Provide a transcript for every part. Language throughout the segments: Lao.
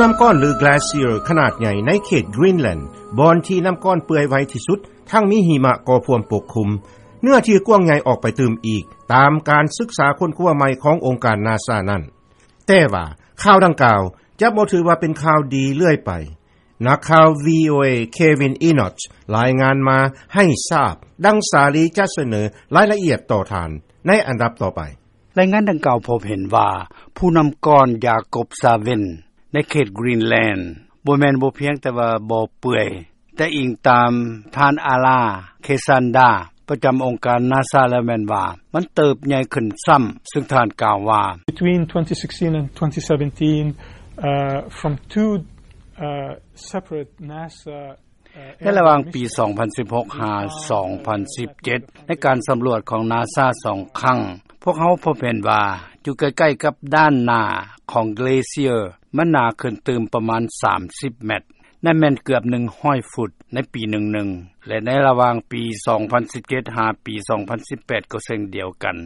ນໍ້າກ້ອນ ຫຼື Glacier ຂະໜາດໃຫຍ່ ໃນເຂດ Greenland ບ່ອນທີ່ນໍ້າກ້ອນເປື່ອຍໄວທີ່ສຸດ ທັງມີຫິມະກໍພວມປົກຄຸມ ເນື້ອທີ່ກວ້າງໃຫຍ່ອອກໄປຕື່ມອີກ ຕາມການສຶກສາຄົ້ນຄວ້າໃໝ່ ຂອງອົງການ ນາຊາ ນັ້ນ. ແຕ່ວ່າ ຂ່າວດັ່ງກ່າວ ຈະບໍ່ຖືວ່າເປັນຂ່າວດີເລື້ອຍໄປ. ນັກຂ່າວ VOA Kevin Enoch ລາຍງານມາໃຫ້ຊາບ ດັ່ງສາລີຈະສະເໜີ ລາຍລະອຽດຕໍ່ທ່ານ ໃນອັນດັບຕໍ່ໄປ. ລາຍງານດັ່ງກ່າວ ພົບເຫັນວ່າ ພູນໍ້າກ້ອນ ຢາກົບຊາເວັນ ໃນເຂດ Greenland ບໍ່ແມ່ນພຽງແຕ່ວ່າບໍ່ເປື່ອຍ ແຕ່ອີງຕາມ ທ່ານ Ala Kesanda ປະຈຳອົງການ ນາຊາ ແລ້ວແມ່ນວ່າ ມັນເຕີບໃຫຍ່ຂຶ້ນຊ້ຳ ຊຶ່ງທ່ານກ່າວວ່າ: Between twenty sixteen and twenty seventeen, uh, from two, uh, separate NASA ໃນລະຫວ່າງປີ ສອງພັນສິບຫົກ ຫາ ສອງພັນສິບເຈັດ ໃນການສຳຫຼວດຂອງ ນາຊາ ສອງຄັ້ງ ພວກເຮົາພົບເຫັນວ່າ ຢູ່ໃກ້ໆກັບດ້ານໜ້າຂອງ Glacier ມັນໜາຂຶ້ນຕື່ມປະມານ ສາມສິບແມັດ ນັ້ນແມ່ນເກືອບ ໜຶ່ງຮ້ອຍຟຸດ ໃນປີໜຶ່ງໆ ແລະ ໃນລະຫວ່າງປີ ສອງພັນສິບເຈັດ ຫາປີ ສອງພັນສິບແປດ ກໍເຊັ່ນດຽວກັນ.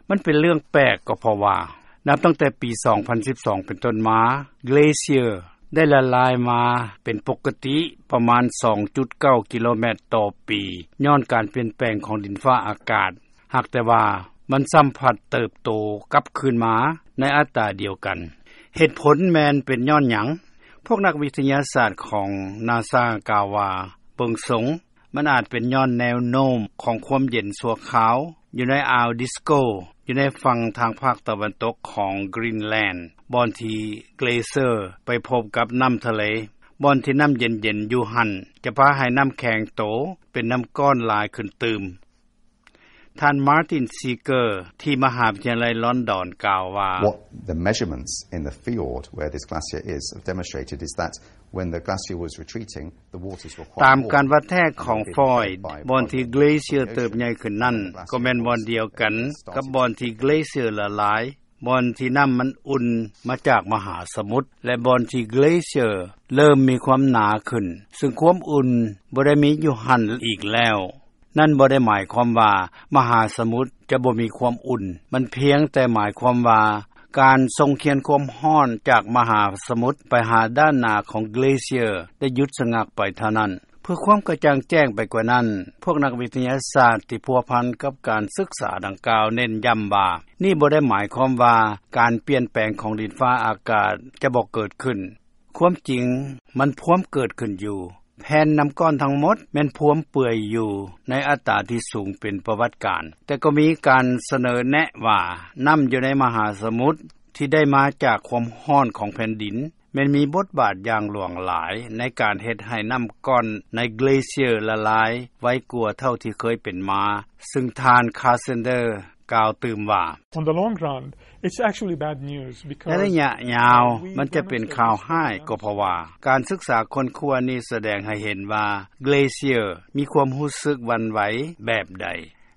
ມັນເປັນເລື່ອງແປກ ກໍເພາະວ່າ ນັບຕັ້ງແຕ່ປີ ສອງພັນສິບສອງ ເປັນຕົ້ນມາ Glacier ໄດ້ລະລາຍມາເປັນປົກກະຕິ ປະມານ ສອງຈຸດເກົ້າ ກິໂລແມັດຕໍ່ປີ ຍ້ອນການປ່ຽນແປງຂອງດິນຟ້າອາກາດ ຫາກແຕ່ວ່າ ມັນຊ້ຳພັດເຕີບໂຕກັບຄືນມາ ໃນອັດຕາດຽວກັນ. ເຫດຜົນແມ່ນເປັນຍ້ອນຫຍັງ? ພວກນັກວິທະຍາສາດຂອງ ນາຊາ ກ່າວວ່າ ເບິ່ງຊົງ ມັນອາດເປັນຍ້ອນແນວໂນ້ມຂອງຄວາມເຢັນຊົ່ວຄາວ ຢູ່ໃນອ່າວ Disko ຢູ່ໃນຝັ່ງທາງພາກຕາເວັນຕົກຂອງ Greenland ບ່ອນທີ່ Glacier ໄປພົບກັບນໍ້າທະເລ ບ່ອນທີ່ນໍ້າເຢັນໆຢູ່ຫັ້ນ ຈະພາໃຫ້ນໍ້າແຂງໂຕເປັນນໍ້າກ້ອນຫຼາຍຂຶ້ນຕື່ມ. ທ່ານ Martin Seeger ທີ່ມະຫາວິທະຍາໄລ London ກ່າວວ່າ: What the measurements in the fjord where this glacier is have demonstrated is that when the glacier was retreating, the waters were quite warm. ຕາມການວັດແທກຂອງ Foy ບ່ອນທີ່ Glacier ເຕີບໃຫຍ່ຂຶ້ນນັ້ນ ກໍແມ່ນບ່ອນດຽວກັນກັບບ່ອນທີ່ Glacier ລະລາຍ, ບ່ອນທີ່ນໍ້າມັນອຸ່ນມາຈາກມະຫາສະໝຸດ ແລະ ບ່ອນທີ່ Glacier ເລີ່ມມີຄວາມໜາຂຶ້ນ, ຊຶ່ງຄວາມອຸ່ນບໍ່ໄດ້ມີຢູ່ຫັ້ນອີກແລ້ວ. ນັ້ນບໍ່ໄດ້ໝາຍຄວາມວ່າມະຫາສະໝຸດຈະບໍ່ມີຄວາມອຸ່ນ, ມັນພຽງແຕ່ໝາຍຄວາມວ່າການສົ່ງຄຽນຄວາມຮ້ອນຈາກມະຫາສະໝຸດໄປຫາດ້ານໜ້າຂອງ Glacier ໄດ້ຢຸດສະງັກໄປເທົ່ານັ້ນ. ເພື່ອຄວາມກະຈ່າງແຈ້ງໄປກວ່ານັ້ນ, ພວກນັກວິທະຍາສາດທີ່ພົວພັນກັບການສຶກສາດັ່ງກ່າວເນັ້ນຢ້ຳວ່າ ນີ້ບໍ່ໄດ້ໝາຍຄວາມວ່າການປ່ຽນແປງຂອງດິນຟ້າອາກາດຈະບໍ່ເກີດຂຶ້ນ. ຄວາມຈິງມັນພວມເກີດຂຶ້ນຢູ່. ແຜ່ນນໍ້າກ້ອນທັງໝົດແມ່ນພວມເປື່ອຍຢູ່ໃນອັດຕາທີ່ສູງເປັນປະຫວັດການ, ແຕ່ກໍມີການສະເໜີແນະວ່າ ນໍ້າຢູ່ໃນມະຫາສະໝຸດທີ່ໄດ້ມາຈາກຄວາມຮ້ອນຂອງແຜ່ນດິນ ແມ່ນມີບົດບາດຢ່າງຫຼວງຫຼາຍໃນການເຮັດໃຫ້ນໍ້າກ້ອນໃນ Glacier ລະລາຍໄວກວ່າເທົ່າທີ່ເຄີຍເປັນມາ, ຊຶ່ງທ່ານ Carsander ກ່າວຕື່ມວ່າ: On the long run, it's actually bad news because ໃນໄລຍະຍາວ ມັນຈະເປັນຂ່າວຮ້າຍ ກໍເພາະວ່າການສຶກສາຄົ້ນຄວ້ານີ້ສະແດງໃຫ້ເຫັນວ່າ Glacier ມີຄວາມຮູ້ສຶກຫວັ່ນໄຫວແບບໃດ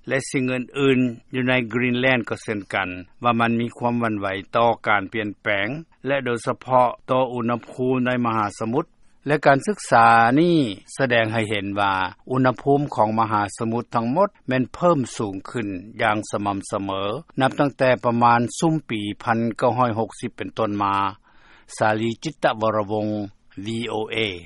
ແລະ ສິ່ງອື່ນໆຢູ່ໃນ Greenland ກໍເຊັ່ນກັນ ວ່າມັນມີຄວາມຫວັ່ນໄຫວຕໍ່ການປ່ຽນແປງ ແລະ ໂດຍສະເພາະຕໍ່ອຸນຫະພູມໃນມະຫາສະໝຸດ ແລະ ການສຶກສານີ້ສະແດງໃຫ້ເຫັນວ່າ ອຸນຫະພູມຂອງມະຫາສະໝຸດທັງໝົດແມ່ນເພີ່ມສູງຂຶ້ນຢ່າງສະໝ່ຳສະເໝີ ນັບຕັ້ງແຕ່ປະມານຊຸມປີ ໜຶ່ງພັນເກົ້າຮ້ອຍຫົກສິບ ເປັນຕົ້ນມາ. ສາລີ ຈິດຕະວໍລະວົງ VOA.